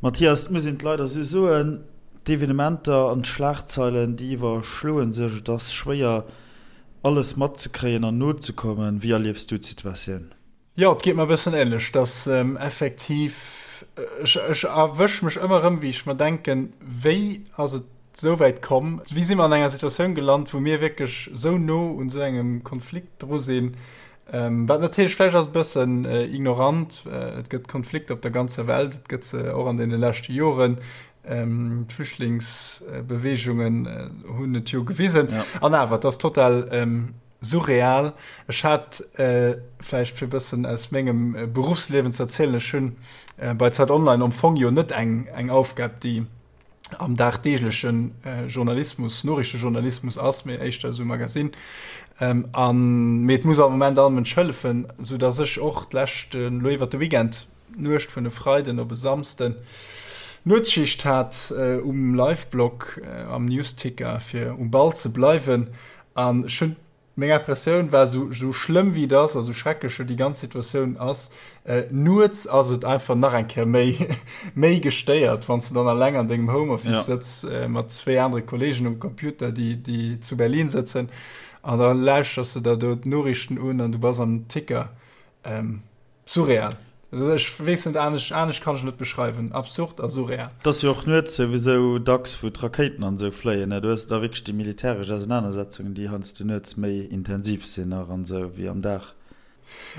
Mathias, et muss een et leider esou soen, d'Evenementer an d'Schlagzeilen, déi iwwerschloe sech. Et ass schwéier, alles matzekréien an nozekommen. Wéi erliefs du d'Situatioun? Jo, et geet mer e bëssen änlech, dass effektiv, ech, ech erwësch mech ëmmer erëm, wéi ech mer denken, wéi ass et esou wäit komm, wéi si mer an enger Situatioun gelant, wou mir wierklech esou no un esou engem Konflikt dru sinn, wat natierlech vläicht ass e bëssen ignorant, et gëtt Konflikter op der ganzer Welt, et gëtt se och an deene leschte Joren, d'Flüchtlingsbeweegungen hunn et jo gewisen, an awer, et ass total Surreal. Ech hat, vläicht fir e bëssen aus mengem Beruffsliewen ze erzielen, ech hunn bei Zeit Online am Fong jo net eng eng Aufgab, déi am dagdeegleche Journalismus, Noriichtejournalismus ass, mee éischter esou Magasinn. An, mee et muss am Moment all Mënsch hëllefen, soudass ech och d'lescht, elo iwwert de Weekend, d'Nuecht vun e Freiden op e Samsden, Nuetsschicht hat um Liveblog, am Newsticker, fir um Ball ze bleiwen. An ech hunn, meng Impressioun war, esou esou schlëmm wéi et ass a sou schrecklech jo déi ganz Situatioun ass, nuets ass et einfach nach eng Kéier méi méi gestéiert, wann s de dann alleng an dengem Homeoffice sëtz mat zwéi anere Kolleegen um Computer, déi déi zu Berlin sëtzen, an da lauschters de der do d'Noriichten un an du bass am Ticker. Surreal. Ech weess net, anescht, anescht kann ech et net beschreiwen. Absurd a surreal. Et ass jo och nuets souwisou dacks, wou d'Rakéiten an esou fléien, ne? Do hues de da wierklech déi militäresch Ausenanersetzungen, déi heiansdo nuets méi intensiv sinn nach an esou wéi am Dag.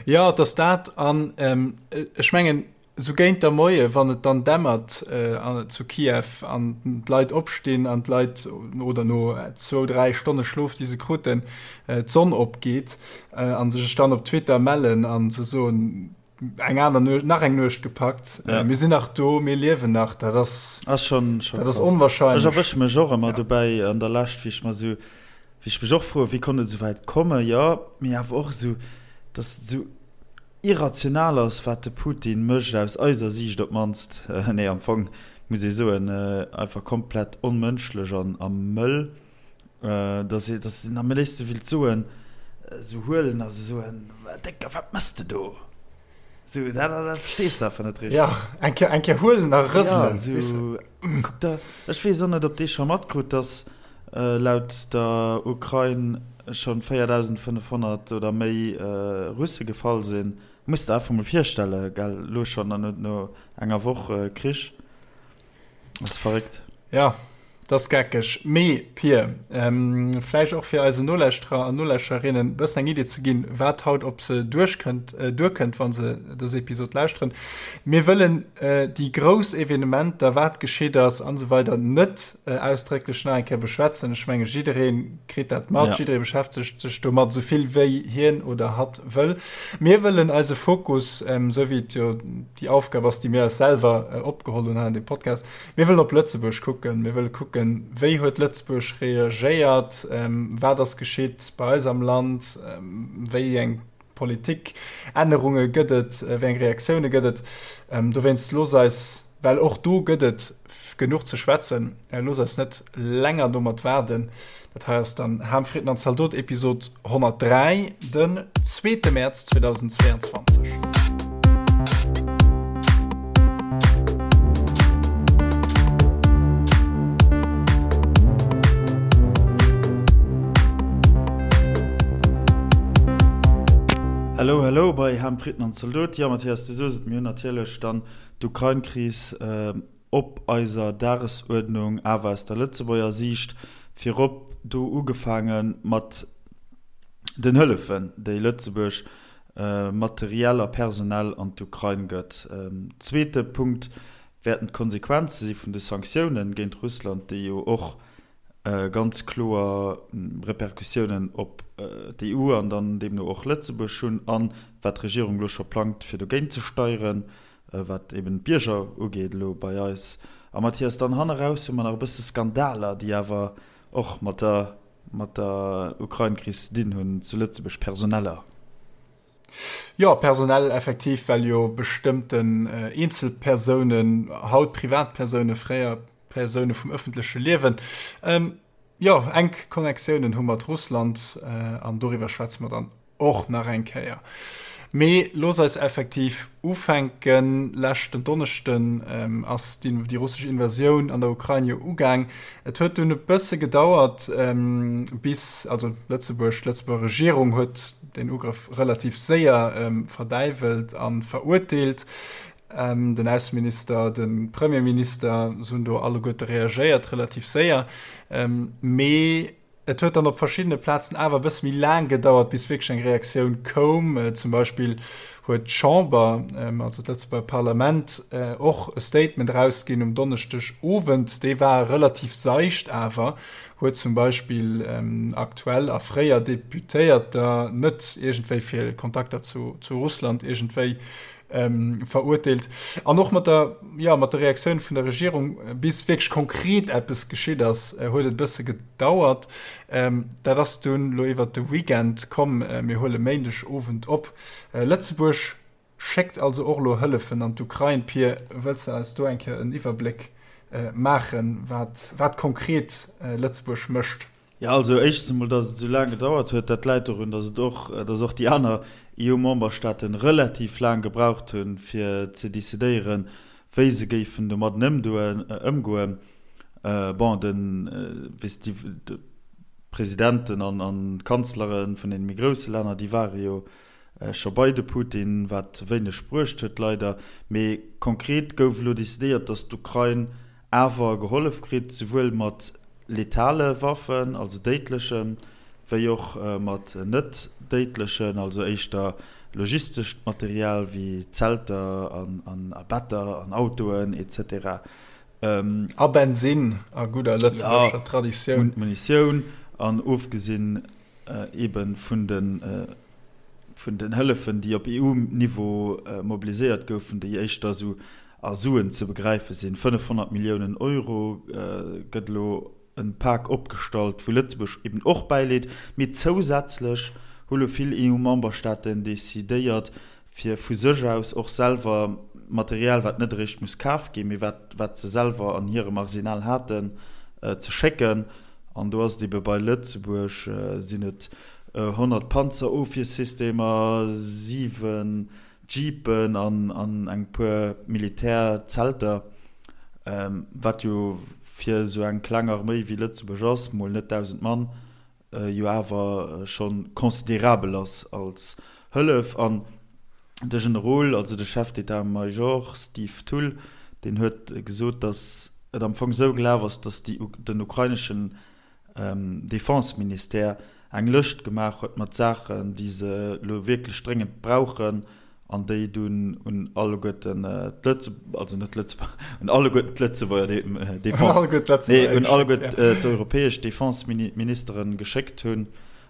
Jo, et ass dat. An ech mengen, esou géint der Moie, wann et dann dämmert zu Kiew an d'Leit opstinn an d'Leit, oder no zwou, dräi Stonne Schlof, déi se kruten, d'Sonn opgeet, an sech dann op Twitter mellen an ze soen, eng aner Nuecht, nach eng Nuecht gepackt, ja. mir sinn nach do, mir liewen nach, dat ass, ass schon, schon dat ass onwahrscheinlech. Ech erwësch mech och ëmmer ja. dobäi an der Lescht, wéi ech mer sou, wéi ech mech och froen, wéi konnt et esou wäit kommen, jo, mee awer och esou, dass et esou irrational ass, wat de Putin mécht, aus eiser Siicht op d'mannst, nee, am Fong muss ee soen, einfach komplett onmënschlech an a mëll. Dass ee, dass een am léifste willt soen, esou huelen a sou soen, Décker, wat mëss de do? Sou, dat, dat verstees de einfach net richteg. Ja, eng Kéier, eng Kéier huelen a rëselen, Ja, sou, kuck der, ech weess och net, ob dee scho matkrut, dass laut der Ukrain schonn 4.500 oder méi Russe gefall sinn. Muss der einfach mol virstelle, gell, elo schonn an no enger Woch Krich. Ass verréckt. Ja, dat ass geckeg. Mee, Pir, vläicht och fir eisen Nolauschterer an Nolauschtererinnen e bëssen eng Idee ze ginn, wat haut op se duerchkënnt, duerkënnt, wa se dës Episod lauschteren. Mir wëllen déi grouss Evenementer, wat geschitt ass an esou weider net ausdrécklech nach eng Kéier beschwätzen. Ech menge jidderee kritt dat mat, jidderee beschäftegt sech domat esou vill wéi hien oder hatt wëll. Mir wëllen eise Fokus, esou wéi et jo déi Aufgab ass, déi mir eis selwer opgeholl hunn hei an deem Podcast, mir wëllen op Lëtzebuerg kucken. Mir wëlle kucken, wéi huet Lëtzebuerg reagéiert, wat ass geschitt bei eis am Land, wéi eng Politikännerunge gëtt et, wéi eng Reaktioune gëtt et. Dowéinst looss eis, well och do gëtt et genuch ze schwätzen, looss eis net länger domat waarden. Dat hei ass dann Ham, Fritten an Zaldot, Episod 103, den zweete Mäerz 2022. Hello, hello bei Ham, Fritten an Zaldot. Jo, Mathias, du soos et, mir hunn natierlech dann d'Ukrain-Kris op eiser Dagesuerdnung, awer aus der Lëtzebuerger Siicht, virop do ugefaange mat den Hëllefen, déi Lëtzebuerg materiell a personell an d'Ukrain gëtt. Zweete Punkt wäerten d'Konsequenze si vun de Sanktiounen géint Russland, déi jo och ganz kloer Repercussiounen op d'EU an dann deemno och Lëtzebuerg hunn, an wat d'Regierung elo scho plangt, fir dogéint ze steieren. Wat eben d'Bierger ugeet elo bei eis. A Mathias, dann hanneraus hu mer nach e bësse Skandaler, déi awer och mat der, mat der Ukrain-Kris ze dinn hunn zu Lëtzebuerg, personeller. Jo, personell effektiv, well jo bestëmmten Eenzelpersounen, haut Privatpersounen, fréier Persoune vum ëffentleche Liewen, jo, enk Connectiounen hu mat Russland. An doriwwer schwätze mer dann och nach eng Kéier. Mee looss eis effektiv ufänken. Leschten Donneschden ass déi russesch Invasioun an der Ukrain jo ugaang. Et huet dunn e bësse gedauert, bis, also Lëtzebuerg, d'Lëtzebuerger Regierung huet deen Ugrëff relativ séier verdäiwelt a verurteelt. Den Ausseminister, de Premierminister, se hunn do alleguerte reagéiert, relativ séier. Mee et huet dann op verschiddene Plazen awer e bësse méi laang gedauert, bis wierklech eng Reaktioun koum. Zum Beispill huet d'Chamber, also d'Lëtzebuerger Parlament, och e Statement erausginn um Donneschdeg Owend. Dee war relativ seicht awer, huet zum Beispill aktuell a fréier Deputéierter net iergendwéi fir Kontakter zu Russland iergendwéi verurteelt. An och mat der, jo, mat der Reaktioun vun der Regierung, bis wierklech konkret eppes geschitt ass, huet et e bësse gedauert. Dat ass dunn elo iwwert de Weekend komm. Mir huele Méindeg Owend op. Lëtzebuerg schéckt also och elo Hëllefen an d'Ukrain. Pir, wëlls de eis do eng Kéier en Iwwerbléck maachen, wat, wat konkret Lëtzebuerg mécht? Jo, also éischtens emol, datt et esou laang gedauert huet, dat läit dorun, datt et och, datt och déi aner EU-Memberstaaten relativ laang gebraucht hunn, fir ze decidéieren, wéi se géifen domadden ëmdoen, ëmgoen. Bon, de, wéi s de, d'Presidenten an an d'Kanzlere vun deene méi grousse Länner, déi ware jo scho bei de Putin, wat wéineg bruecht huet, leider. Mee konkret gouf elo decidéiert, datt d'Ukrain awer gehollef kritt, souwuel mat letale Waffen, also déidlechen, wéi och mat net déidlechen, also éischter logistescht Material wéi Zelter an a Better an Autoen etc. A Bensinn a gudder lëtzebuergescher Traditioun. Munitioun an ofgesinn ebe vun de vun den Hëllefen, déi op EU-Niveau mobiliséiert goufen, déi éischter esou a Suen ze begräife sinn. 500 Milliounen Euro gëtt elo en Pak opgestallt, wou Lëtzebuerg eben och bäileet. Mee zousätzlech hu lo vill EU-Memberstaaten decidéiert, fir vu sech aus och selwer Material, wat net eréischt muss kaf ginn, mee wat wat se selwer an hirem Arsenal haten, ze schécken. An do ass et ebe bei Lëtzebuerg sinn et 100 Panzerofwiersystemer, 7 Jeepen an an eng puer Militärzelter, wat jo fir esou eng kleng Arméi wéi Lëtzebuerg ass, mol net 1.000 Mann, jo awer scho considerabel ass als Hëllef. An de Generol, also de Chef d'état-major Steve Thull, deen huet gesot, datt et am Fong esou gelaf ass, datt déi den ukraineschen Defense-Ministère eng Lëscht gemaach huet mat Saachen, déi se elo wierklech dréngend brauchen an déi dunn un alleguerten d'Lëtze-, also net d'Lëtzebuerger, un alleguerten d'Lëtzebuerger Defense, nee, un alleguerten d'europäesch Defense-Ministeren geschéckt hunn.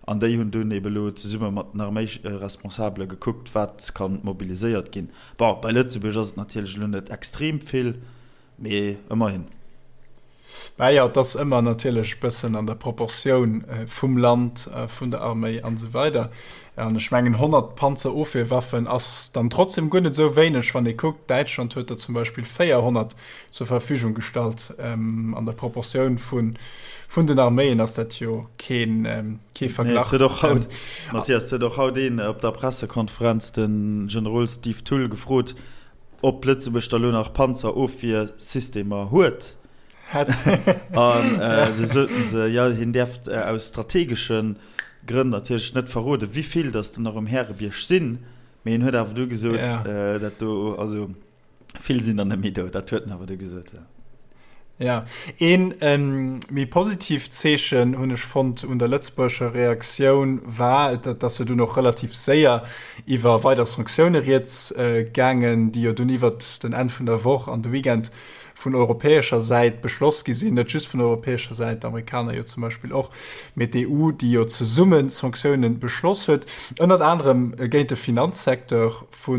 An déi hunn dunn ebe lo zesumme mat den Arméiresponsabele gekuckt, wat ka mobiliséiert ginn. Bon, bei Lëtzebuerg ass et natierlech elo net extrem vill. Mee ëmmerhin. Mä jo, et ass ëmmer natierlech e bëssen an der Proportioun vum Land, vun der Arméi an esou weider. An ech mengen 100 Panzerofwierwaffen ass dann trotzdem guer net esou wéineg, wann ee kuckt, Däitschland huet der zum Beispill 400 zur Verfügung gestallt. An der Proportioun vun den Arméien ass dat jo kee Verglach. Nee, et huet och haut, Mathias, et huet och haut een op der Pressekonferenz de Generol Steve Thull gefrot, Ob Lëtzebuerg da lo nach Panzerofwiersystemer huet? Hätt. An du soten se, jo, hien däerft aus strategesche Grënn natierlech net verroden, wéi vill datt der nach um Härebierg sinn. Mee hien huet awer du gesot, dat do, also vill sinn der net méi do. Dat huet en awer du gesot, jo. Ja, een méi positiivt Zeechen hunn ech fonnt un der lëtzebuergescher Reaktioun war, et ass jo dunn och relativ séier iwwer weider Sanktioune rieds gaangen, déi jo dunn iwwert den Enn vun der Woch an de Weekend vun europäescher Säit beschloss gi sinn, net just vun europäescher Säit, d'Amerikaner jo zum Beispill och, mee d'EU, déi jo zesumme Sanktioune beschloss huet, ënnert anerem géint de Finanzsecteur vu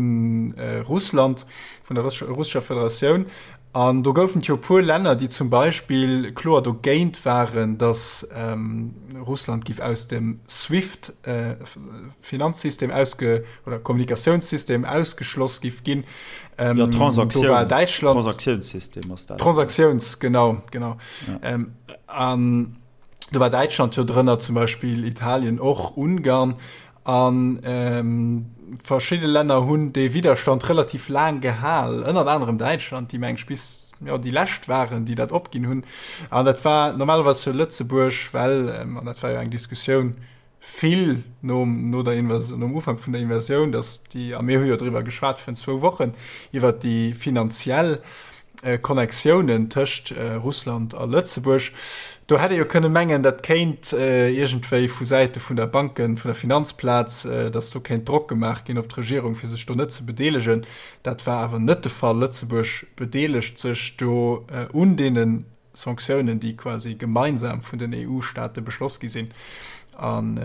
Russland, vun der Russescher Federatioun. An do goufen et jo e puer Länner, déi zum Beispill kloer dogéint waren, datt Russland giff aus dem SWIFT-Finanzsystem ausge oder Kommunikatiounssystem ausgeschloss giff ginn. Jo, Do war Däitschland. Transaktionssystem ass dat. Transaktiouns, genau, genau. Ja. An do war Däitschland jo drënner, zum Beispill Italien och, Ungarn. An. Verschidde Länner hunn dee Widderstand relativ laang gehal, ënnert anerem Däitschland, déi meng ech bis jo déi lescht waren, déi dat opginn hunn. An dat war normalerweis jo Lëtzebuerg, well, an dat war jo eng Diskussioun vill nom, no der Invasioun, nom Ufank vun der Invasioun, datt déi, a mir hu jo driwwer geschwat virun zwou Wochen, iwwert déi finanziell Connectiounen tëscht Russland a Lëtzebuerg. Do hätt ee jo kënne mengen, dat kéint iergendwéi vu Säite vun der Banken, vun der Finanzplaz, datt do kéint Drock gemaach ginn op d'Regierung, fir sech do net ze bedeelegen. Dat war awer net de Fall. Lëtzebuerg bedeelegt sech do un deene Sanktiounen, déi quasi gemeinsam vun den EU-Staate beschloss gi sinn, an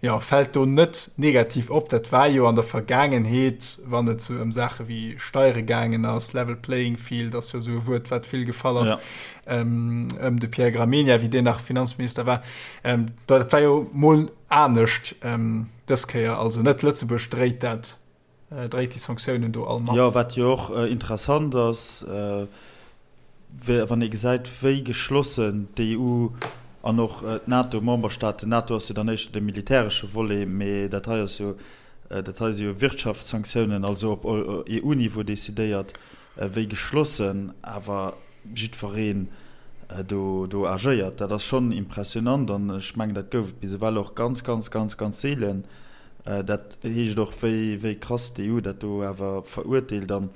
jo, fält do net negativ op. Dat war jo an der Vergaangenheet, wann et sou ëm Saache wéi Steiere gaangen ass, level playing field ass jo esou e Wuert, wat vill gefall ass, ëm de Pierre Gramegna, wéi deen nach Finanzminister war, dat war jo mol anescht dës Kéier. Also net Lëtzebuerg dréit dat dréit déi Sanktiounen do all mat. Jo, wat jo och interessant ass, wann ee gesäit, wéi geschlossen d'EU an och d'NATO-Memberstaaten, d'NATO ass jo dann éischter de militäresche Volet, mee dat hei ass jo, dat hei si jo Wirtschaftssanktiounen, also op EU-Niveau decidéiert, wéi geschlossen awer jiddwereen do do agéiert. Dat ass schonn impressionant an ech mengen, dat gouf et bis ewell och ganz, ganz, ganz, ganz seelen. Dat heescht och, wéi wéi krass d'EU dat do awer verurteelt an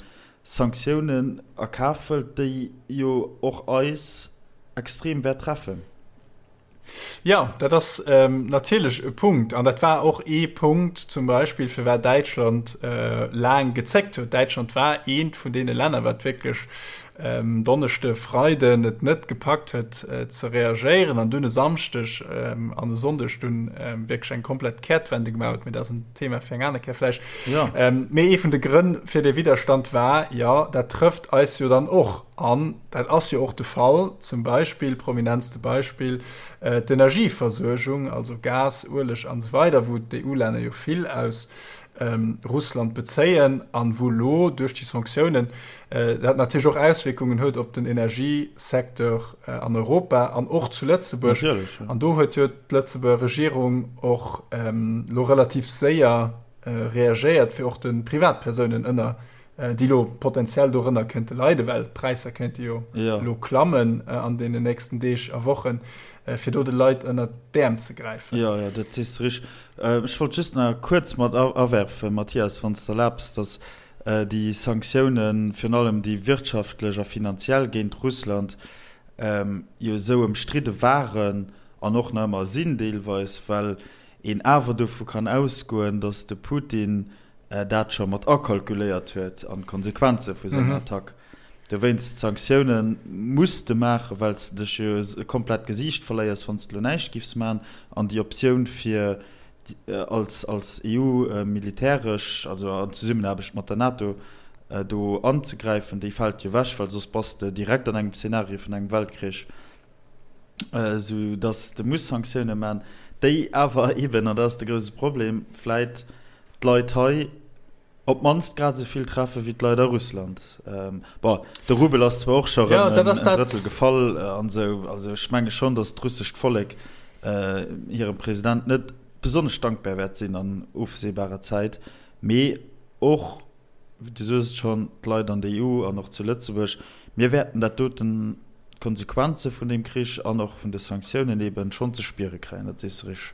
Sanktiounen a Kaf hëlt, déi jo och eis extrem wäert treffen. Jo, dat ass natierlech e Punkt. An dat war och ee Punkt zum Beispill, firwat Däitschland laang gezéckt huet. Däitschland war eent vun deene Länner, wat wierklech Donneschde, Freiden et net gepackt huet ze reagéieren an dunn e Samschdeg an e Sonndeg dunn wierklech eng komplett Kehrtwende gemaach huet. Mee dat ass en Thema fir eng aner Kéier vläicht. Mee ee vun de Grënn fir dee Widderstand war, jo, dat trëfft eis jo dann och. An dat ass jo och de Fall, zum Beispill, prominentste Beispill, d'Energieversuergung, also Gas, Ueleg an esou weider, wou d'EU-Länner jo vill aus Russland bezéien an wou elo duerch déi Sanktiounen dat natierlech och Auswierkungen huet op den Energiesecteur an Europa an och zu Lëtzebuerg. An do huet jo d'Lëtzebuerger Regierung och elo relativ séier reagéiert, fir och de Privatpersounen ënner déi elo potenziell dorënner kënnte leiden, well d'Präisser kéinte jo elo klammen an deenen nächsten Deeg a Wochen, fir do de Leit ënnert d'Äerm ze gräifen. Jo, jo, dat sees de richteg. Ech wollt just nach kuerz mat awerfen, Mathias, wann s de erlaabs, datt déi Sanktiounen, virun allem déi wirtschaftlech a finanziell géint Russland, jo esou ëmstridde waren an och nach ëmmer sinn deelweis, well een awer dovu kann ausgoen, datt de Putin dat scho mat akalkuléiert huet an d'Konsequenze vu senger Attack. Dowéinst d'Sanktioune muss de maachen, well s de dech jo komplett d'Gesiicht verléiers, wann s de elo näischt giffs maachen. An déi Optioun fir als als EU militäresch, also an Zesummenaarbecht mat der NATO, do anzegräifen, déi fält jo ewech, well soss bass de direkt an engem Zenario vun engem Weltkrich. Esou datt de muss Sanktioune man, déi awer eben, an dat ass de grouse Problem, vläit d'Leit hei op d'mannst grad esou vill treffe wéi d'Leit a Russland. Bon, de Rubel ass zwar och scho rëm en Drëttel gefall an esou, also ech menge schonn, datt d'russescht Vollek hirem President net besonnesch dankbar wäert sinn an ofsehbarer Zäit, mee och, du soos et schonn, d'Leit an der EU an och zu Lëtzebuerg, mir wäerten dat doten, d'Konsequenze vun deem Krich an och vun de Sanktiounen eeben schonn ze spiere kréien, dat sees de richteg.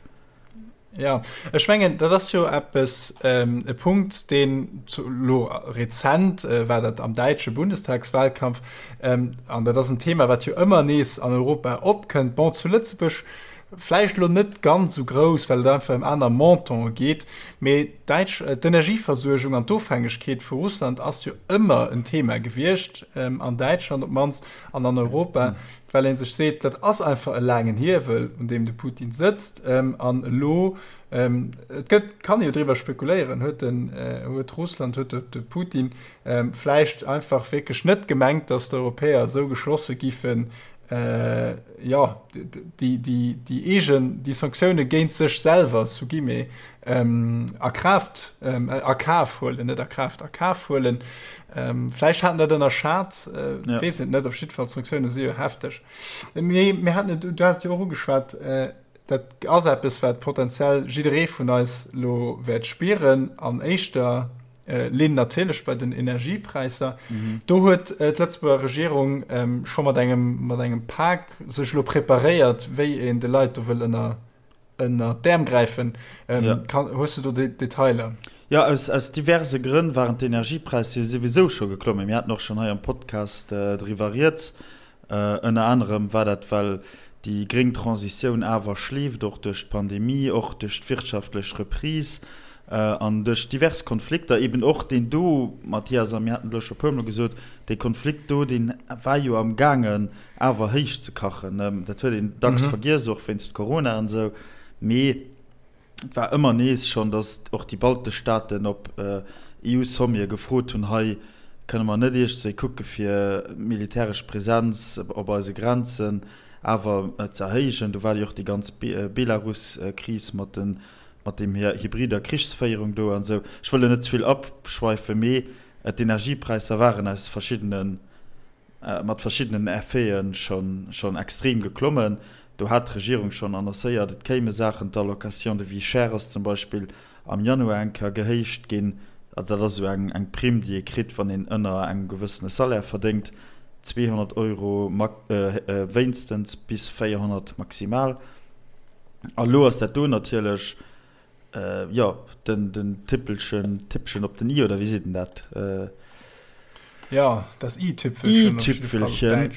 Jo, ech mengen, dat ass jo eppes, e Punkt, deen elo rezent war dat am däitsche Bundestagswahlkampf, an dat ass en Thema, wat jo ëmmer nees an Europa opkënnt. Bon, zu Lëtzebuerg vläicht elo net ganz esou grouss, well et einfach ëm aner Montante geet, mee d'däitsch, d'Energieversuergung an d'Ofhängegkeet vu Russland ass jo ëmmer en Thema gewiescht, an Däitschland op d'mannst an an Europa. Well ee sech seet, dat ass einfach e laangen Hiewel, un deem de Putin sëtzt. An elo, et gëtt, kann ee jo driwwer spekuléieren, huet den, huet Russland, huet de Putin vläicht einfach wierklech net gemengt, datt d'Europäer esou geschlosse giffen, jo, déi, déi, déi eegen, déi Sanktioune géint sech selwer, sous guillemets, a Kraaft, a Kaf huelen, net a Kraaft, a Kaf huelen. Vläicht hat en dat ënnerschat, ja. weess et net, op jiddwer Fall d'Sanktioune si jo hefteg. Mee mir haten et, du has et jo och ugeschwat, äh, Dat ass eppes, wat potenziell jidderee vun eis elo wäert spieren, an éischter Linn natierlech bei den Energiepräisser. Do huet d'Lëtzebuerger Regierung scho mat engem, mat engem Pak sech elo preparéiert, wéi een de Leit do wëll ënner, ënner d'Äerm gräifen. Kann, hues du do Detailer? Jo, aus, aus diverse Grënn waren d'Energiepräisser jo souwisou scho geklommen. Mir haten och schonn hei am Podcast driwwer rieds. Ënner anerem war dat, well déi gréng Transitioun awer schleeft, och duerch d'Pandemie, och duerch d'wirtschaftlech Reprise an duerch divers Konflikter, eben och deen do, Mathias, a mir haten et elo scho e puermol gesot, dee Konflikt do, dee war jo am gaangen awer héich ze kachen. Dat huet een dacks vergiess, och wéinst Corona an esou, mee Et war ëmmer nees schonn, datt och déi baltesch Staaten op EU-Sommete gefrot hunn, hei kënne mer net iergendswéi kucke fir militäresch Presenz op eise Grenzen awer ze erhéijen. Do war jo och déi ganz Belarus-Kris mat den, mat deem hybrider Krichsféierung do an esou. Ech wëll elo net ze vill abschweifen, mee d'Energiepräisser waren aus verschiddenen mat verschiddenen Effete schonn extrem geklommen. Do hat d'Regierung schonn annoncéiert, et kéime Saachen, d'Allocation de vie chère ass zum Beispill am Januar eng Kéier gehéicht ginn. Also dat ass esou eng Primm, déi ee kritt, wann een ënner engem gewëssene Salaire verdéngt, 200 Euro wéinstens bis 400 maximal. A lo ass dat do natierlech Jo, den, den Tippelchen, Tippchen op den i, oder wéi seet en dat? Jo, das i-Tüpfelchen. I-Tüpfelchen.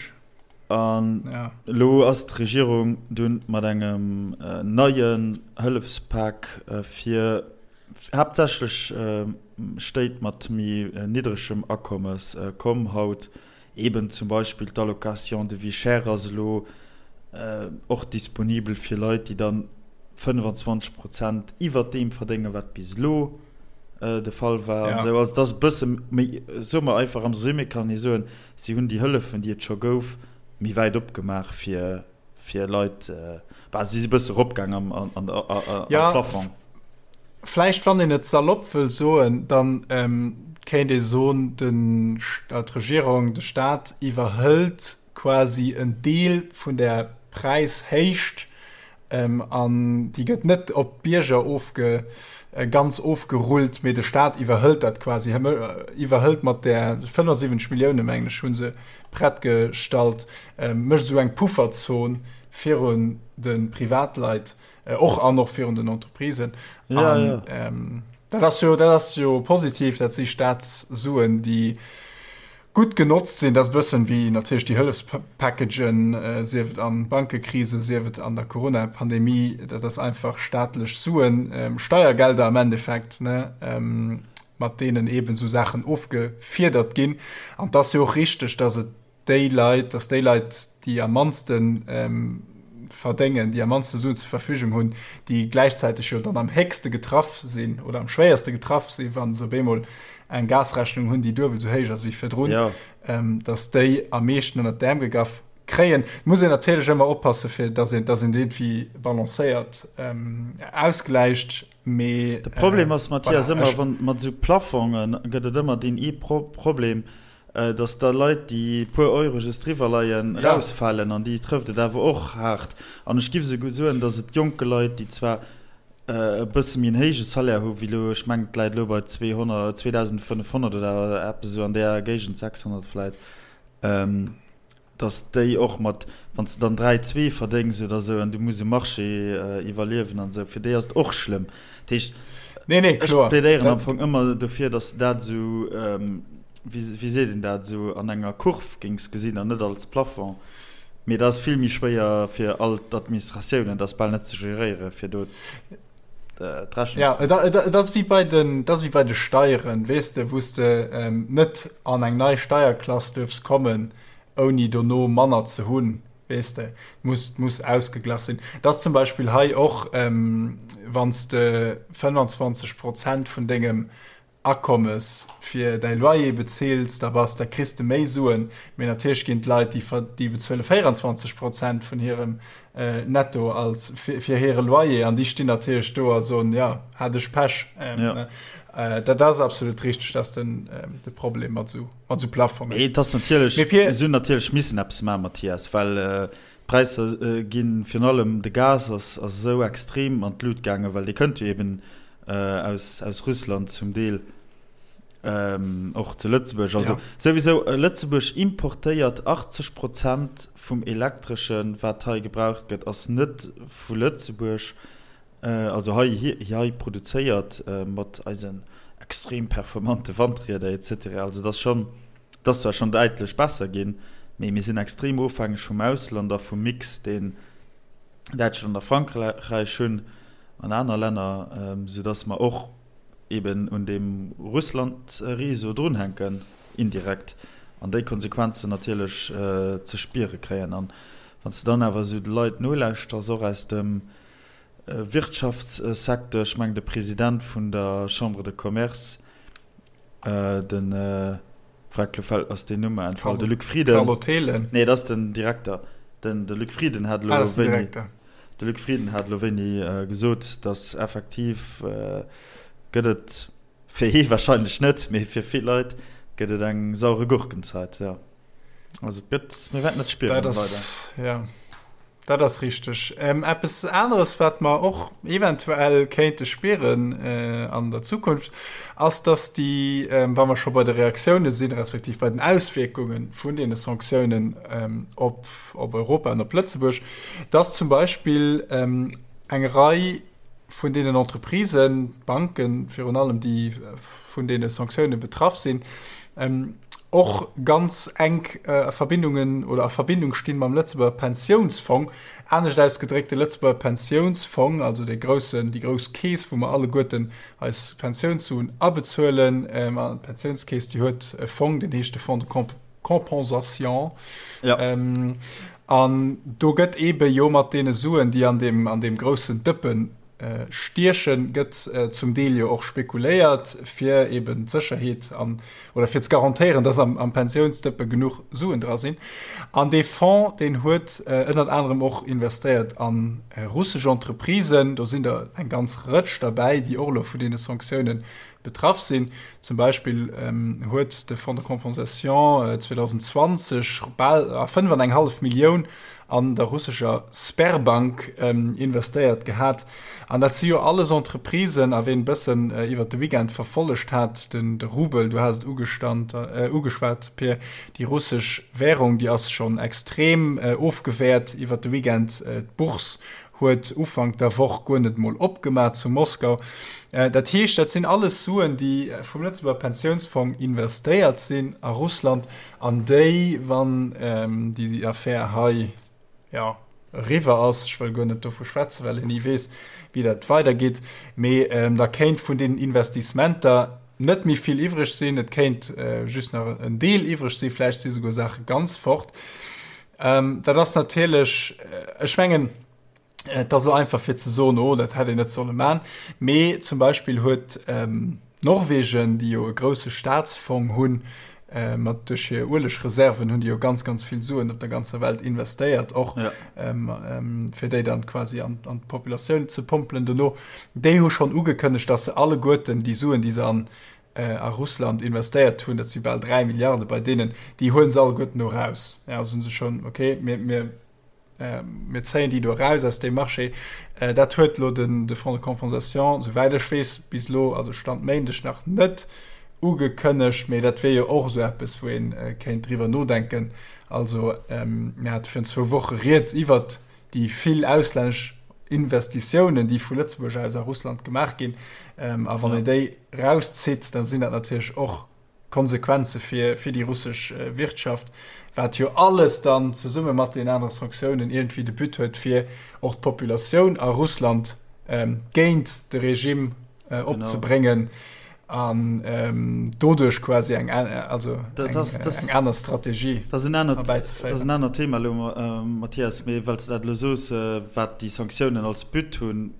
An ja. Lo ass d'Regierung dunn mat engem neien Hëllefspak fir haaptsächlech Stéit mat méi niddregem Akommes komm haut. Eben zum Beispill d'Allocation de vie chère ass elo och disponibel fir Leit, déi dann 25 Prozent iwwert deem verdéngen, wat bis elo de Fall war an esou. Also et ass e bësse méi, soe mer einfach am Résumé kann ee soen, si hunn déi Hëllefen, déi et scho gouf, méi wäit opgemaach fir fir Leit, bah, si si bësse eropgaang am, am, am ja, Plafond. Vläicht, wann een et salopp wëll soen, dann ähm, kéint ee soen, den, d'Regierung, de Staat iwwerhëlt quasi en Deel vun der Präishéicht ähm, an déi gëtt net op d'Bierger ofge, äh, ganz ofgerullt, mee de Staat iwwerhëlt dat quasi, iwwerhëlt mat där 75 Millioune, mengen ech, hu se prett gestallt, mécht esou eng Pufferzon virun de Privatleit och an och virun den Entreprisen. Ja, an, ja. Ähm, dat ass jo, dat ass jo positiv, dat si Staatssuen, déi gutt genotzt sinn. Dat ass e bëssen wéi natierlech déi Hëllefspackagen, äh, sief et an Bankekrise, sief et an der Corona-Pandemie. Dat ass einfach staatlech Suen, ähm, Steiergelder am Endeffekt, ne? Ähm, mat deenen eben esou Saachen ofgefiedert ginn. An et ass jo och richteg, dass et déi Leit, dass déi Leit, déi am mannste verdéngen, déi am mannste Suen zur Verfügung hunn, déi gläichzäiteg jo dann am héchste getraff sinn oder am schwéierste getraff sinn, wa se op eemol eng Gasrechnung hunn, déi duebel esou héich ass wéi virdrun, dass déi am meeschten ënnert d'Äerm gegraff kréien. Et muss een natierlech ëmmer oppassen, fir dass een, dass een dat iergendwéi balancéiert ausgläicht. Mee, De Problem ass, Mathias, voilà, ëmmer, wann mat esou Plafonge gëtt et ëmmer deen ee Pro Problem, dass da Leit, déi e puer Euro just driwwer leien, ja. rausfalen an déi trëfft et awer och haart. An ech giff esouguer soen, dass et jonke Leit, déi zwar e bësse méi en héije Salaire hu wéi elo, ech mengen et läit elo bei 200, 2.500 oder eppes esou an där Géigend, 600 vläit, dass déi och mat, wann s de dann 3, 2 verdéngs oder esou an du muss um Marché iwwerliewen an esou, fir déi ass et och schlëmm. Dat heescht, nee, nee, ech plädéieren am Fong ëmmer dofir, dass de dat esou, wéi, wéi seet een dat, esou an enger Kurv géings gesinn an net als Plafond. Mee dat ass vill méi schwéier fir all d'Administratiounen, dat ass bal net ze geréieren, fir do d'Rechnung ze maachen. Ja, et ass wéi bei den, et ass wéi bei de Steieren, weess de, wou s de net an eng nei Steierklass duerfs kommen, ouni dono manner ze hunn, weess de, muss, muss ausgeglach sinn. Et ass zum Beispill hei och, wann s de 25 Prozent vun dengem Akommes fir däi Loyer bezils, da bass, da kriss de méi Suen. Mee natierlech ginn d'Leit, déi ver, déi bezuele 24 Prozent vun hirem Netto als fir, fir hire Loyer an déi stinn natierlech do a soen, jo, hat ech Pech. Ja. Dat ass absolut richteg, dat ass den, de Problem mat esou, mat esou Plafongen. Mee et ass natierlech, Mee fir. Si hunn natierlech missen eppes maachen, Mathias, well. D'Präisser ginn, virun allem de Gas ass esou extrem an d'Lut gaangen, well dee kënnt jo eben aus aus Russland zum Deel, och zu Lëtzebuerg. Also souwisou, Lëtzebuerg importéiert 80 Prozent vum Elektreschen, wat hei gebraucht gëtt, ass net vu Lëtzebuerg, also hei hei produzéiert mat eisen extrem performante Wandrieder et cetera. Also et ass schonn. Et ass zwar schonn däitlech besser ginn, mee mir sinn extrem ofhängeg vum Ausland a vum Mix, deen Däitschland a Frankräich hunn an aner Länner, soudass mer och eeben un deem Russland-Réseau drunhänken, indirekt, an déi Konsequenzen natierlech ze spiere kréien. An wann s de dann awer esou de Leit nolauschters, och aus dem Wirtschaftssecteur, ech mengen de President vun der Chambre de Commerce, Den Freck, lo fällt ass den Numm entfall, de Luc Frieden. Carlo Thelen. Nee, dat ass den Direkter. Den de Luc Frieden hat lo wéini de Luc Frieden hat lo wéini gesot, datt effektiv gëtt et fir hie wahrscheinlech net, mee fir vill Leit gëtt et eng saure Gurkenzeit, jo. Also et gëtt, mir wäerten et spieren Dat ass, ja. Dat ass richteg. Eppes aneres, wat mer och eventuell kéinte spieren an der Zukunft, ass, dass déi, wa mer scho bei de Reaktioune sinn, respektiv bei den Auswierkunge vun deene Sanktiounen op Europa an op Lëtzebuerg, dass zum Beispill eng Rei vun deenen Entreprisen, Banken virun allem, déi vun deene Sanktioune betraff sinn, och ganz enk Verbindungen oder a Verbindung stinn mam Lëtzebuerger Pensiounsfong. Anescht ausgedréckt, de Lëtzebuerger Pensiounsfong, also dee groussen, déi grouss Keess, wou mer alleguerten eis Pensiounssuen abezuelen, an d'Pensiounskeess, déi huet e Fong, deen heescht de Fonds de Compensation. Ja. An do gëtt eebe jo mat deene Suen, déi an deem, an deem groussen Dëppen Stiechen, gëtt zum Deel jo och spekuléiert, fir eben d'Sécherheet an, oder fir ze garantéieren, dass am, am Pensiounsdëppe genuch Suen dra sinn. An dee Fonds, deen huet ënnert anerem och investéiert a russesch Entreprisen. Do sinn der eng ganz Rëtsch derbäi, déi och elo vun deene Sanktiounen betraff sinn. Zum Beispill huet de Fonds de compensation 2020 bal 5 an eng hallef Millioun an der russescher Sberbank investéiert gehat. An dat si jo alles Entreprisen, a ween e bëssen iwwert de Weekend verfollegt hat, den de Rubel, du has et ugestand, ugeschwat, Pir, déi russesch Währung, déi ass schonn extrem ofgewäert iwwert de Weekend. D'Bourse huet Ufank der Woch guer net mol opgemaach zu Moskau. Dat heescht, dat sinn alles Suen, déi vum Lëtzebuerger Pensiounsfong investéiert sinn a Russland An déi, wann déi Affär hei, jo, eriwwer ass, ech wëll guer net dovu schwätzen, well een ni weess, wéi dat weidergeet, mee da kéint vun deenen Investissementer net méi vill iwwreg sinn. Et kéint just nach en Deel iwwreg sinn, vläicht si souguer Saache ganz fort. Dat ass natierlech, ech mengen, Et ass elo einfach fir ze soen, oh dat hätt een net solle man. Mee zum Beispill huet Norwegen, déi jo e grousse Staatsfong hunn, mat duerch hir Uelegreserven hunn déi jo ganz ganz vill Suen op der ganzer Welt investéiert och, fir déi dann quasi an an d'Populatioun ze pompelen dono. Déi hu schonn ugekënnegt, datt se alleguerten déi Suen, déi se an a Russland investéiert hunn, dat si bal 3 Milliarde bei deenen, déi huele se alleguerten do eraus. Ja, soen se schonn, okay, mir mir Mir zéien déi do eraus aus deem Marché. Dat huet elo de Fonds de compensation, souwäit ech weess, bis elo, also Stand Méindeg, nach net ugekënnegt. Mee dat wier jo och esou eppes, wou ee kéint driwwer nodenken. Also mir hate virun zwou Woche rieds iwwert déi vill auslännesch Investitiounen, déi vu Lëtzebuerg aus a Russland gemaach ginn. A wann een déi erauszitt, da sinn dat natierlech och Konsequenze fir fir déi russesch Wirtschaft, wat jo alles dann zesumme mat den anere Sanktiounen iergendwéi de But huet, fir och d'Populatioun a Russland géint de Regime opzebréngen an doduerch quasi eng also eng aner Strategie erbäizeféieren. Dat ass en anert Thema elo, Mathias, mee well s de dat elo soos, wat déi Sanktiounen als But hunn,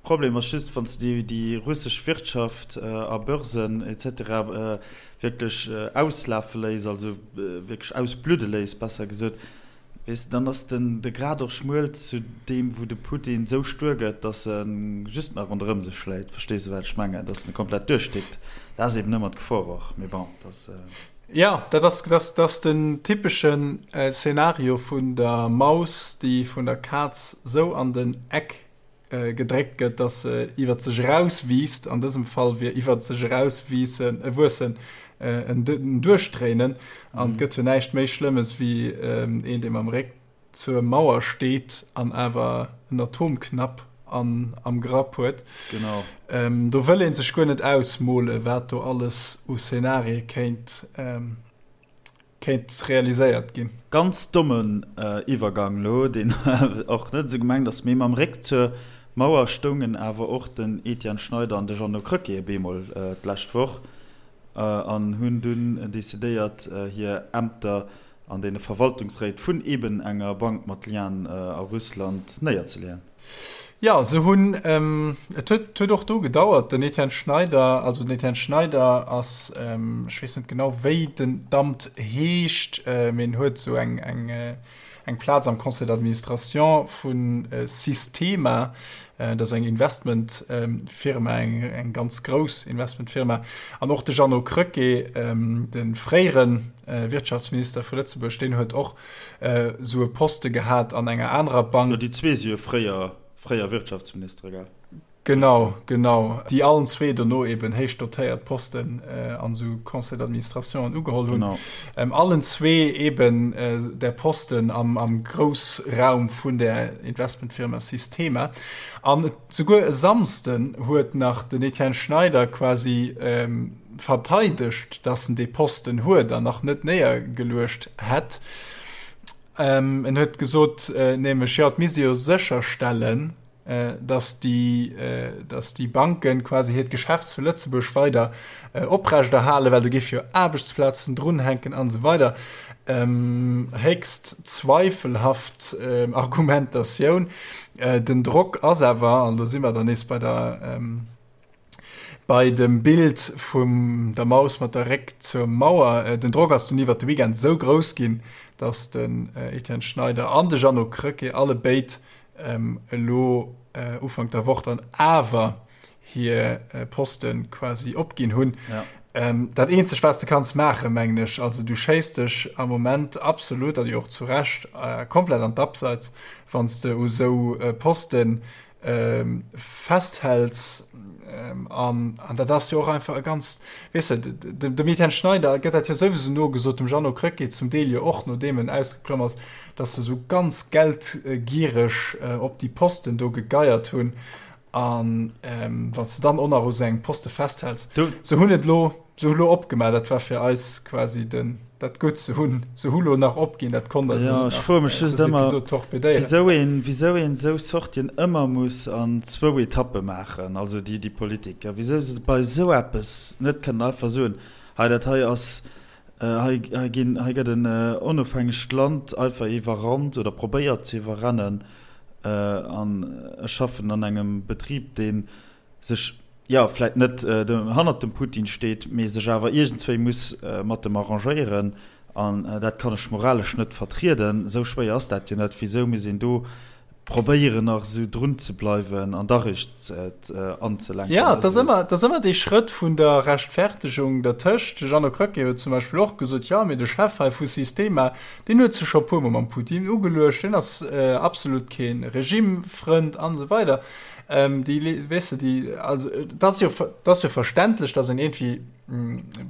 Problem ass just, wann s de déi russesch Wirtschaft a Börsen etc. Wierklech auslafe léiss, also wierklech ausbludde léiss, besser gesot, weess de, dann ass den de Grad och schmuel zu deem, wou de Putin esou stuer gëtt, datt e just nach ronderëm sech schléit. Verstees de, wat ech mengen? Datt en komplett duerchdickt. Dat ass eben ëmmer d'Gefor och. Mee bon, dat ass. Jo, dat ass, dat ass den typeschen Szenario vun der Maus, déi vun der Kaz sou an den Eck gedréckt gëtt, dass se iwwer sech erauswiisst. An dësem Fall wier iwwer sech erauswiissen, wuessen en Duerchdréinen. An et gëtt jo näischt méi Schlëmmes wéi een, dee mam Réck zur Mauer steet an awer en Atomknapp an am Grapp huet. Genau. Do wëll ee sech guer net ausmole wat do alles u Szenarie kéint kéint realiséiert ginn. Ganz dommen Iwwergang lo, deen och net esou gemengt ass, mee mam Réck zur Mauer stoungen awer och den Etienne Schneider an de Jeannot Krecké op eemol d'lescht Woch an hunn dunn decidéiert hir Ämter an deene Verwaltungsréit vun eben enger Bank mat Lienen a Russland néierzeleeën. Jo, se hunn, et huet huet och do gedauert, den Etienne Schneider, also den Etienne Schneider ass, ech weess net genau wéi den d'Amt heescht, mee en huet esou eng eng eng Plaz am Conseil d'administration vu Sistema, dat ass eng Investmentfirma, eng eng ganz grouss Investmentfirma. An och de Jeannot Krecké, de fréiere Wirtschaftsminister vu Lëtzebuerg, deen huet och esou e Poste gehat an enger anerer Bank. Jo, déi zwee si jo fréier, fréier Wirtschaftsministere, gell? Genau, genau. Déi allen zwee dono eben héich dotéiert Posten an esou Conseils d'administrationen ugeholl hunn. Genau. Allen zwee eben där Posten am, am Groussraum vun där Investmentfirma Sistema. An et, souguer e Samsden huet nach den Etienne Schneider quasi verteidegt, dass en dee Posten huet an nach net néiergeluecht hätt. En huet gesot nämlech, jo, et misst ee jo sécherstellen, dass déi, dass déi Banken quasi hiert Geschäft zu Lëtzebuerg weider oprechterhalen, well do géif jo Aarbechtsplazen drunhänken an esou weider. Héchst zweifelhaft Argumentatioun. Den Drock ass awer, an do si mer dann nees bei der, Bei dem Bild vum der Maus mat der Réck zur Mauer, den Drock ass dunn iwwert de Weekend esou grouss ginn, datt den Etienne Schneider an de Jeannot Krecké alle béid elo Ufank der Woch dann awer hir Poste quasi opginn hunn. Dat eenzegt wat s de kanns maachen, mengen ech, also du schéiss dech am Moment absolut, a jo och zu Recht, komplett an d'Abseits, wann s de u sou Posten festhäls an an dat ass jo och einfach e ganz weess de dem Etienne Schneider gëtt dat jo souwisou nogesot, dem Jeannot Krecké zum Deel jo och, nodeem en ausgeklomm ass, datt se esou ganz geldgiereg op déi Posten do gegeiert hunn an wann s de dann och nach u sou engem Poste festhäls. Se hunn et elo Se hu lo opgemaach, dat war fir eis quasi den, dat Gutt. Se hunn, se hu lo nach opginn, dat konnt eis elo net nach dës Episod torpedéieren. Wisou een, wisou een esou Sortien ëmmer muss an zwou Etappe maachen, also déi, déi Politiker, wisou se bei esou eppes net kënnen einfach soen, hei dat hei ass, hei, hei ginn, hei gëtt en onofhängegt Land einfach iwwerrannt oder probéiert ze iwwerrennen an ech schaffen an engem Betrib, deen sech, jo, vläit net hannert dem Putin steet, mee sech awer iergendswéi muss mat em arrangéieren. An dat kann ech moralesch net vertrieden. Esou schwéier ass dat jo net. Wisou muss een do probéieren, nach esou drun ze bleiwen an da réischt anzelenken? Jo, et ass ëmmer, et ass ëmmer dee Schrëtt vun der Rechtfertegung dertëscht. De Jeannot Krecké huet zum Beispill och gesot, jo, mee de Chef hei vu Sistema, deen huet sech scho e puermol mam Putin ugeluecht, deen ass absolut kee Regimefrënd an esou weider. Ähm, déi, weess de, déi, also, et ass jo, et ass jo verständlech, dass een iergendwéi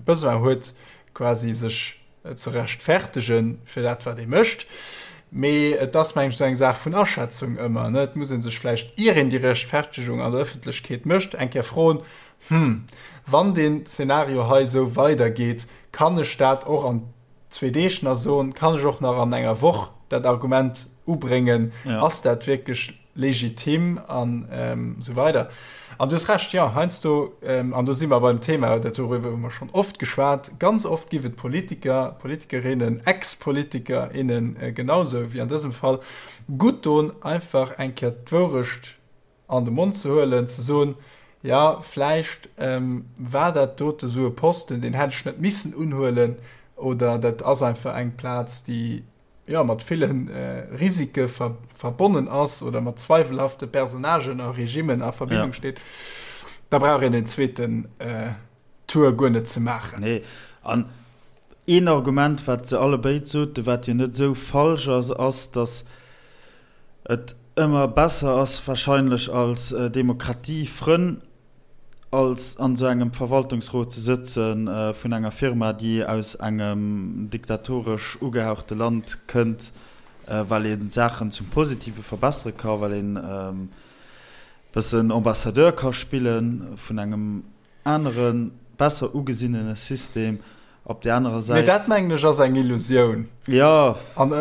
Besoin huet, quasi sech ze rechtfertegen fir dat, wat ee mécht. Mee et ass, meng ech, esou eng Saach vun Aschätzung ëmmer, ne? Et muss ee sech vläicht, ier een déi Rechtfertegung an der Ëffentlechkeet mécht, eng Kéier froen, Hm, wann deen Zeenario hei esou weidergeet, kann ech dat och an zwee Deeg nach soen? Kann ech och nach an enger Woch dat Argument ubréngen? Ass dat wierklech legitim an esou weider. An du hues Recht, jo, heiansdo, an do si mer beim Thema, dat doriwwer hu mer schonn oft geschwat, ganz oft giff et Politiker, Politikerinnen, Ex-Politiker, innen genausou wéi an dësem Fall, gutt don, einfach eng Kéier d'Wourecht an de Mond ze huelen, ze soen, jo, vläicht war dat dote sou e Posten, deen hätt ech net missen unhuelen, oder dat ass einfach eng Plaz, déi jo, mat ville Risike verbonnen ass oder mat zweiwelhafte Personnagen a Regimmen a Verbindung ja. steet, da brauch een den zweeten äh, Tour guer net ze maachen. Nee, an. Een Argument, wat se allebéid soten, wat jo net esou falsch ass, ass, datt et ëmmer besser ass wahrscheinlech als Demokratiefrënn als an esou engem Verwaltungsrot ze sëtze vun enger Firma, déi aus engem diktatoresch ugehauchte Land kënnt, well ee Saachen zum Positive verbessere ka, well een e bëssen Ambassadeur ka spille vun engem anere besser ugesinnene System op där anerer Säit. Mee dat mengen ech ass eng Illusioun. Jo. An,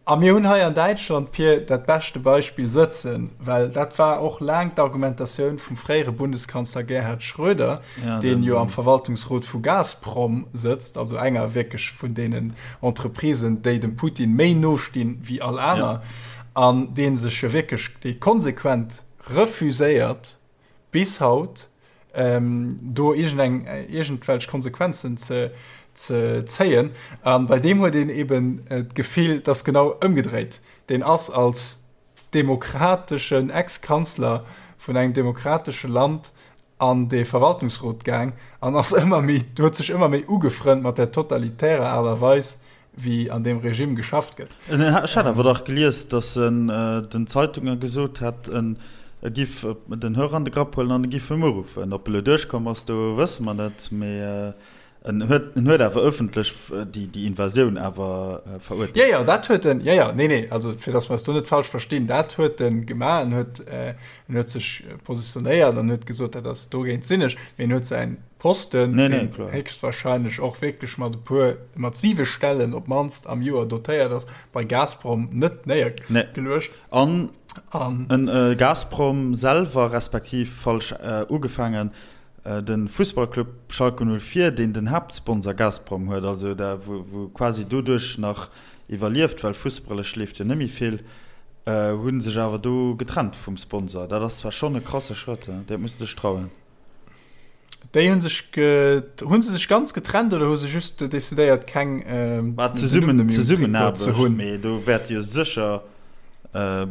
a mir hunn hei an Däitschland, Pir, dat beschte Beispill sëtzen, well dat war och laang d'Argumentatioun vum fréiere Bundeskanzler Gerhard Schröder, ja, deen jo am Verwaltungsrot vu Gazprom sëtzt, also enger wierklech vun deenen Entreprisen, déi dem Putin méi no stinn wéi all aner, ja. an dee sech jo wierklech, dee konsequent refuséiert, bis haut do iergendeng iergendwelch Konsequenzen ze ze zéien. An bei deem huet een eben d'Gefill, dass genau ëmgedréit. Deen ass als demokrateschen Ex-Kanzler vun engem demokratesche Land an dee Verwaltungsrot gaang an ass ëmmer méi huet sech ëmmer méi ugefrënnt mat där totalitärer Aart a Weis, wéi an deem Regime geschafft gëtt. Ech hat awer dach gelies, datt en den Zeitunge gesot hätt, en giff den Hörer an de Grapp huelen an e giff em uruffen. Ob e lo duerchkomm ass, do wësse mer net, mee en huet en huet awer ëffentlech déi déi Invasioun awer verurteelt. Jo, jo, dat huet en, jo, jo, nee, nee, also fir datt mer eis do net falsch verstinn, dat huet en gemaach. En huet en huet sech positionéiert an huet gesot, dat ass dogéint sinn ech, mee en huet säin Posten, nee, nee, deen héchstwahrscheinlech och wierklech mat e puer, mat siwe Stellen op d'mannst am Joer dotéiert ass, bei Gazprom net néiergeluecht. Nee. An, An en, äh, Gazprom selwer, respektiv falsch äh, ugefaangen, äh, de Fussballclub Schalke 04, deen den Haaptsponsor Gazprom huet, also da wou, wou quasi doduerch nach iwwerlieft, well fussballesch leeft jo net méi vill, äh, hu sech awer do getrennt vum Sponsor. Dat ass zwar schonn e krasse Schrëtt, dat muss de dech trauen. Déi hunn sech hunn se sech ganz getrennt oder hu se just decidéiert keng ähm, War zesummen Zesummenaarbecht ze hunn? Mee do wäerte jo sécher äh,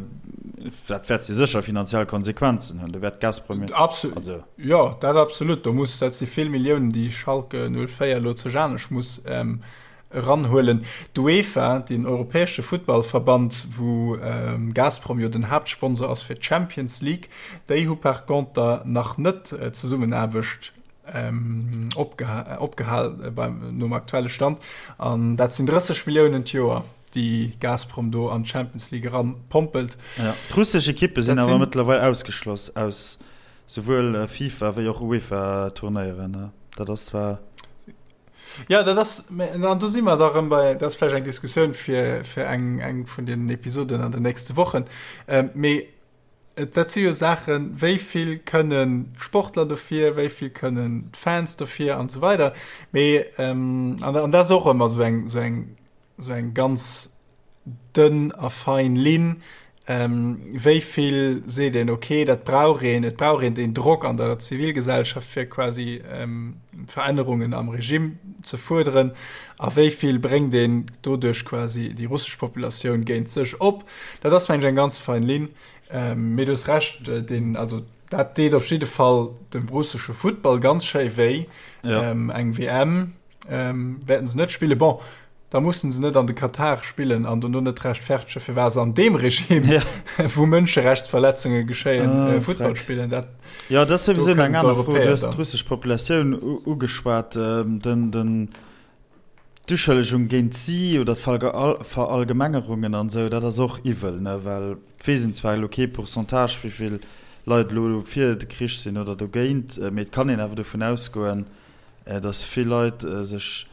dat wäert jo sécher finanziell Konsequenzen hunn. Do wäert Gazprom Absolut. Also. Jo, dat absolut. Do muss dat si vill Milliounen, déi Schalke 04 elo zu Janesch muss ähm, eranhuelen. D'UEFA, den europäesche Futtballverband, wou Gazprom jo den Haaptsponsor ass fir d'Champions League, déi hu par conter nach net d'Zesummenaarbecht opgehal nom aktuelle Stand. An dat sinn 30 Milliounen d'Joer, déi Gazprom do an d'Champions League eranpompelt. D'russesch Ekippe sinn awer mëttlerweil ausgeschloss aus souwuel FIFA wéi och UEFA-Turnéieren. Dat ass zwar. Ja, dat ass, an do si mer da rëm bei, dat ass vläicht eng Diskussioun fir, fir eng, eng vun den Episoden an den nächste Wochen. Ähm, mee et, dat si jo Saachen, wéi vill kënnen d'Sportler dofir, wéi vill kënnen d'Fans dofir an esou weider. Mee, ähm, an, an dat ass och ëmmer esou eng, esou eng, esou eng ganz dënn a fein Linn, wéi vill seet een, okay, dat brauch een, et brauch een deen Drock an der Zivilgesellschaft, fir quasi Verännerungen am Regime ze fuerderen, a wéi vill bréngt een doduerch quasi déi russesch Populatioun géint sech op. Dat ass, mengen ech, eng ganz fein Linn. Mee du hues Recht, deen, also dat deet op jidde Fall dem russesche Futtball ganz schéi wéi, eng WM. ähm, wäerten se net spillen. Bon, da mussen se net an de Katar spillen an dono net rechtfertege firwat se an deem Regime, ja. wou Mënscherechtsverletzunge geschéien, ah, äh, Futtball spillen. Dat, ja, dat ass souwisou eng aner Fro. Du hues d'russesch Populatioun ugeschwat. Ähm, den, den, d'Uschëllegung géint si oder d'Verallgemengerungen an esou, dat ass och iwwel, ne? Well et weess een zwar elo kee Pourcentage, wéi vill Leit elo fir de Krich sinn oder dogéint, mee et kann een awer dovun ausgoen, dass vill Leit sech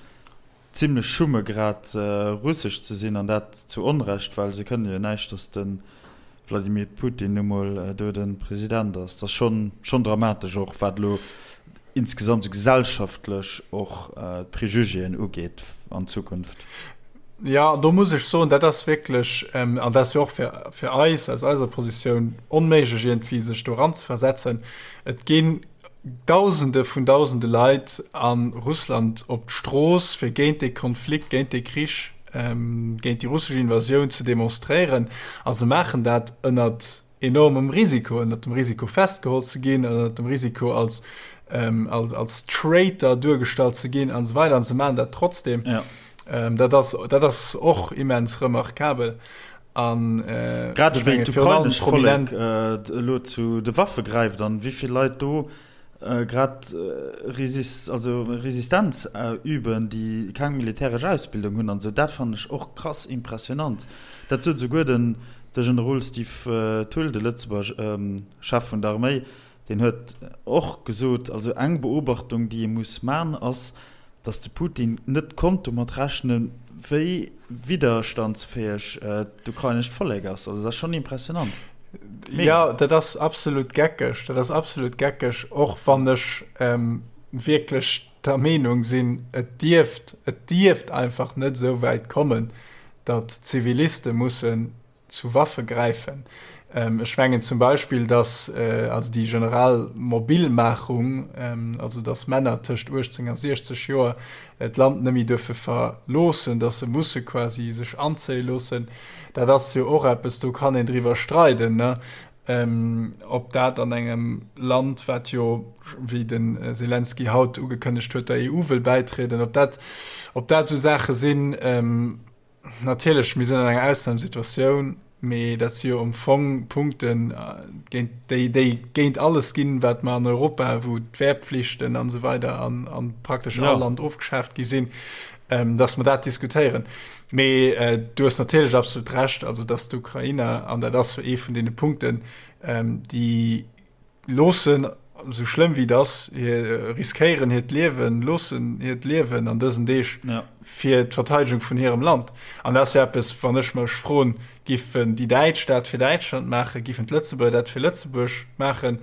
zimlech schumme grad russesch ze sinn, an dat zu Onrecht, well se kënne jo näischt, dass de Vladimir Putin nu mol do de President ass. Dat ass schonn schonn dramatesch, och wat elo insgesamt esou gesellschaftlech och d'Prejugéen ugeet an Zukunft. Jo, do muss ech soen, dat ass wierklech, an dat ass jo och fir fir eis aus eiser Positioun onméiglech iergendwéi sech do eranzeversetzen, et ginn Dausende vun Dausende Leit a Russland op d'Strooss, fir géint dee Konflikt, géint dee Krich, géint déi russesch Invasioun ze demonstréieren. A se maachen dat ënnert enormem Risiko, ënnert dem Risiko festgeholl ze ginn, ënnert dem Risiko als. Als Traitor duergestallt ze ginn an esou weider an se maachen dat trotzdem. Ja. Dat ass, dat ass och immens remarkabel. An Grad ewéi d'ukrainescht Vollek elo zu de Waffe gräift an wéi vill Leit do grad also Resistenz üben, déi keng militäresch Ausbildung hunn an esou, dat fannen ech och krass impressionant. Dat sot esouguer den de Generol Steve Thull, de Lëtzebuerger Chef vun der Arméi, Deen huet och gesot, also eng Beobachtung, déi ee muss man, ass, datt de Putin net konnt domat rechnen, wéi widderstandsfäeg d'ukrainescht Vollek ass. Also dat ass schonn impressionant. Mega. Jo, dat ass absolut geckeg. Dat ass absolut geckeg, och wann ech wierklech der Meenung sinn, et dierft, et dierft einfach net esou wäit kommen, datt Ziviliste mussen zu Waffe gräifen. Ech mengen zum Beispill, dass also déi generell Mobilmachung, also dass Männer tëscht 18 a 60 Joer d'Land net méi duerfe verloossen, dass se musse quasi sech anzéie loossen, dat ass jo och eppes, do kann een driwwer streiden, ne, ob dat an engem Land, wat jo, wéi de Selenskyj haut ugekënnegt huet, der EU wëll bäitrieden, ob dat, ob dat esou Saache sinn, Natierlech, mir sinn an enger Ausnamesituatioun, mee dat si jo am Fong Punkten, géint déi, déi géint alles ginn, wat mer an Europa, wou d'Wehrpflichten an esou weider an, an praktesch all Land ofgeschaaft gi sinn, dass mer dat diskutéieren. Mee du hues natierlech absolut Recht, also dass d'Ukrainer, an dat ass jo ee vun deene Punkten, déi Loossen, esou schlëmm wéi et ass, hir riskéieren hiert Liewen, loossen hiert Liewen an dësen Deeg fir d'Verteidegung vun hirem Land. An dat ass jo eppes, wann ech mech froen, giffen déi Däitsch dat fir Däitschland maachen, giffen d'Lëtzebuerger dat fir Lëtzebuerg maachen?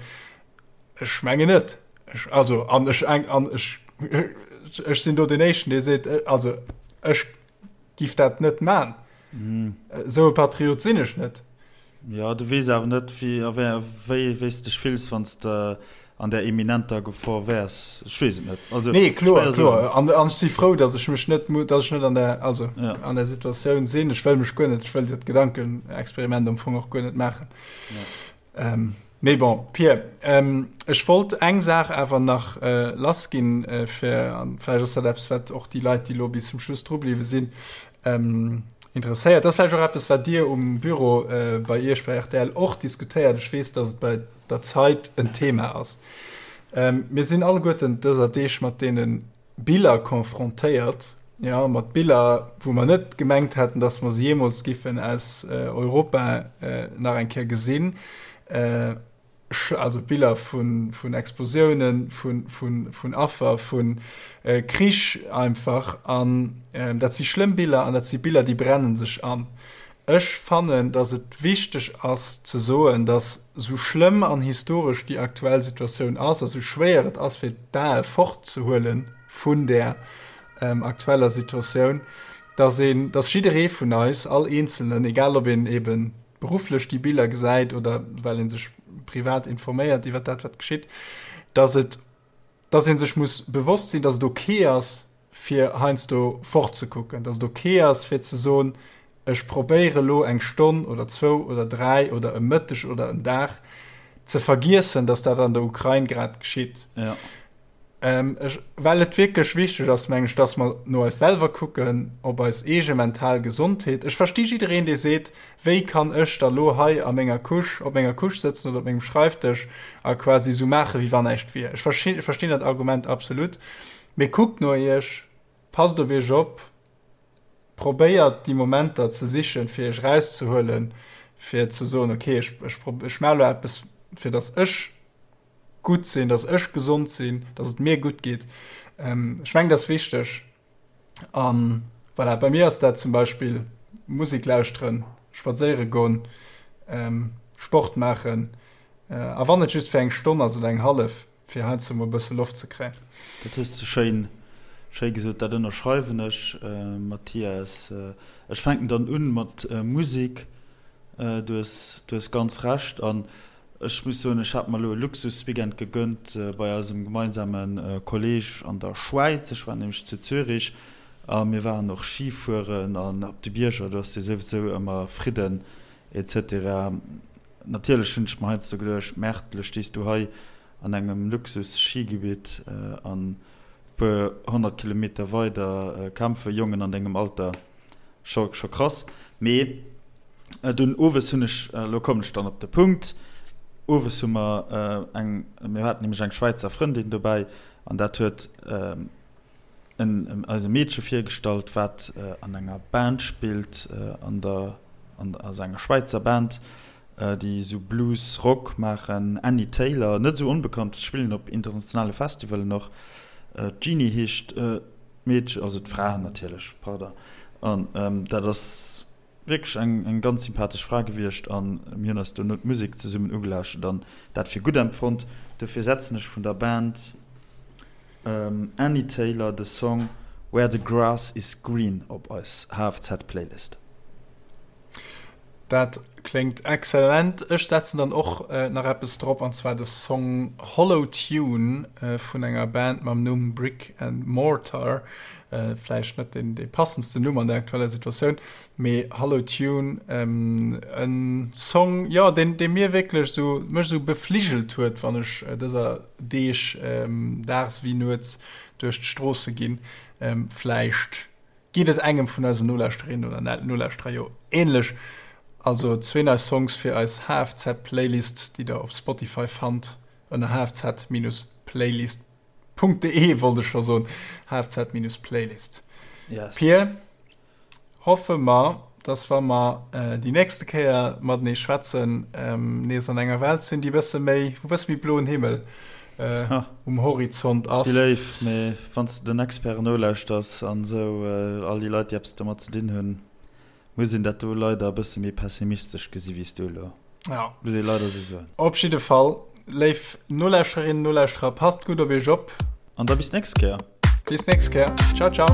Ech mengen net. Ech, also, an ech, an ech, ech sinn do deen Éischten, dee seet, also ech giff dat net man. Esou e Patriot sinn ech net. Jo, du weess awer net, wéi a wéi wéi s de dech fills, wann s de an där eminenter Gefor wäers. Ech weess et net. Also, nee, kloer, kloer. An, an ech si frou, datt ech mech net, datt ech net an der, also, ja. an der Situatioun sinn. Ech wëll mech guer net, ech wëll dat Gedankenexperiment am Fong och guer net maachen. Ja. Ähm, mee bon, Pir, ähm, ech wollt eng Saach awer nach äh, lass ginn, äh, fir, an vläicht ass dat eppes, wat och déi Leit, déi lo bis zum Schluss dru bliwwe sinn, ähm, interesséiert. Dat ass vläicht och eppes, wat Dir um Büro äh, bei Iech bei rtl och diskutéiert. Ech weess, dass et bei der Zeit en Thema ass. Ähm, mir sinn alleguerten dëser Deeg mat deene Biller confrontéiert, ja, mat Biller, wou mer net gemengt hätten, dass mer se jeemools giffen aus äh, Europa äh, nach eng Kéier gesinn. Äh, also Biller vun, vun Explosiounen, vun, vun, vun Affer, vun äh, Krich einfach. An äh, dat si schlëmm Biller an dat si Biller, déi brennen sech an. Ech fannen, dass et wichteg ass ze soen, dass sou schlëmm an historesch déi aktuell Situatioun ass a sou schwéier et ass fir d'Ae fortzehuele vun där aktueller Situatioun, dass een, dass jidderee vun eis, all Eenzelnen, egal ob een eebe berufflech déi Biller gesäit oder well ee sech privat informéiert iwwer dat wat geschitt, dass et, dass ee sech muss bewosst sinn, dass et ok ass fir heiansdo fortzekucken, dass et ok ass fir ze soen, ech probéiere lo eng Stonn oder zwou oder dräi oder e Mëtteg oder en Dag ze vergiessen, dass dat an der Ukrain grad geschitt. Ja. Ähm, ech, well et wierklech wichteg ass, meng ech, dass mer no eis selwer kucken, op eis eege mental Gesondheet. Ech versti jiddereen, dee seet, Wéi kann ech da lo hei a menger Couche, op menger Couche sëtzen oder op mengem Schreifdësch a quasi esou maachen, wéi wann näischt wier? Ech verstinn dat Argument absolut. Mee kuckt no iech, passt op iech op, probéiert déi Momenter ze sichen, fir iech erauszehuelen, fir ze soen, okay, ech, ech, ech maache lo eppes, fir dass ech gutt sinn, dass ech gesond sinn, dass et mir gutt geet. Ähm, ech mengen, dat ass wichteg. An voilà, bei mir ass dat zum Beispill Musek lauschteren, spadséiere goen, ähm, Sport maachen, äh, a wann et just fir eng Stonn ass oder eng hallef, fir heiansdo mol e bësse Loft ze kréien. Dat hues de schéin, schéi gesot. Dat ënnerschreiwen ech, Mathias. Ech fänken dann un mat Musek. Du hues, du hues ganz Recht. An Ech muss soen, ech hat mer elo e Luxusweekend gegönnt bei eisem gemeinsame Kolleg an der Schwäiz. Ech war nämlech zu Zürich a mir waren och Ski fueren an op de Bierger, do ass jo souwisou ëmmer Fridden etc. Natierlech hunn ech mer heiansdo geduecht, Merde, elo stees du hei. an engem Luxus-Schigebitt an e puer 100 Kilometer weider kämpfe Jongen an dengem Alter. Scho scho krass. Mee dunn owes hunn ech, elo kommen ech dann op de Punkt, owes hu mer eng, mir haten nämlech eng Schwäizer Frëndin dobäi an dat huet en eis e Meedche virgestallt, wat an enger Band spillt, an der, an also enger Schwäizer Band, déi esou Blues Rock maachen, Annie Taylor, net esou onbekannt, spillen op internationale Festivalen och. D'Jeanny heescht d'Meedchen, also d'Fra natierlech, pardon. An dat ass wierklech eng eng ganz sympathesch Fra gewiescht an mir hunn eis dono d'Musek zesummen ugelauschtert an dat fir gutt empfonnt. Dofir setzen ech vun der Band Annie Taylor de Song Where the Grass is Green op eis HFZ-Playlist. Dat kléngt excellent. Ech setzen dann och nach eppes drop, an zwar de Song Hollow Tune vun enger Band mam Numm Brick and Mortar. Vläicht net deen dee passendsten Numm an der aktueller Situatioun, mee Hollow Tune, e Song, jo, deen dee mir wierklech esou, mech esou befligelt huet, wann ech dëser Deeg daags wéi nuets duerch d'Stroosse ginn. Vläicht Geet et engem vun eisen Nolauschterinnen oder Nolauschterer jo ähnlech? Also zwee nei Songs fir eis HFZ-Playlist, déi der op Spotify fannt ënner hfz-playlist.de, wollt ech scho soen, hfz-playlist. Yes. Pir, hoffe mer, dass wa mer déi nächste Kéier matenee schwätzen, nees an enger Welt sinn, déi bësse méi, wou bësse méi bloen Himmel um Horizont ass. Déi Léif, mee wann s de den Experten nolauschters an esou, all déi Leit, déi eppes domat ze dinn hunn, muss een dat do leider e bësse méi pessimistesch gesi wéi s du elo. Ja. Muss ee leider esou soen. Op jidde Fall, léif Nolauschterinnen, Nolauschterer, passt gutt op iech op. An da bis d'nächst Kéier. Bis d'nächst Kéier. Ciao, ciao.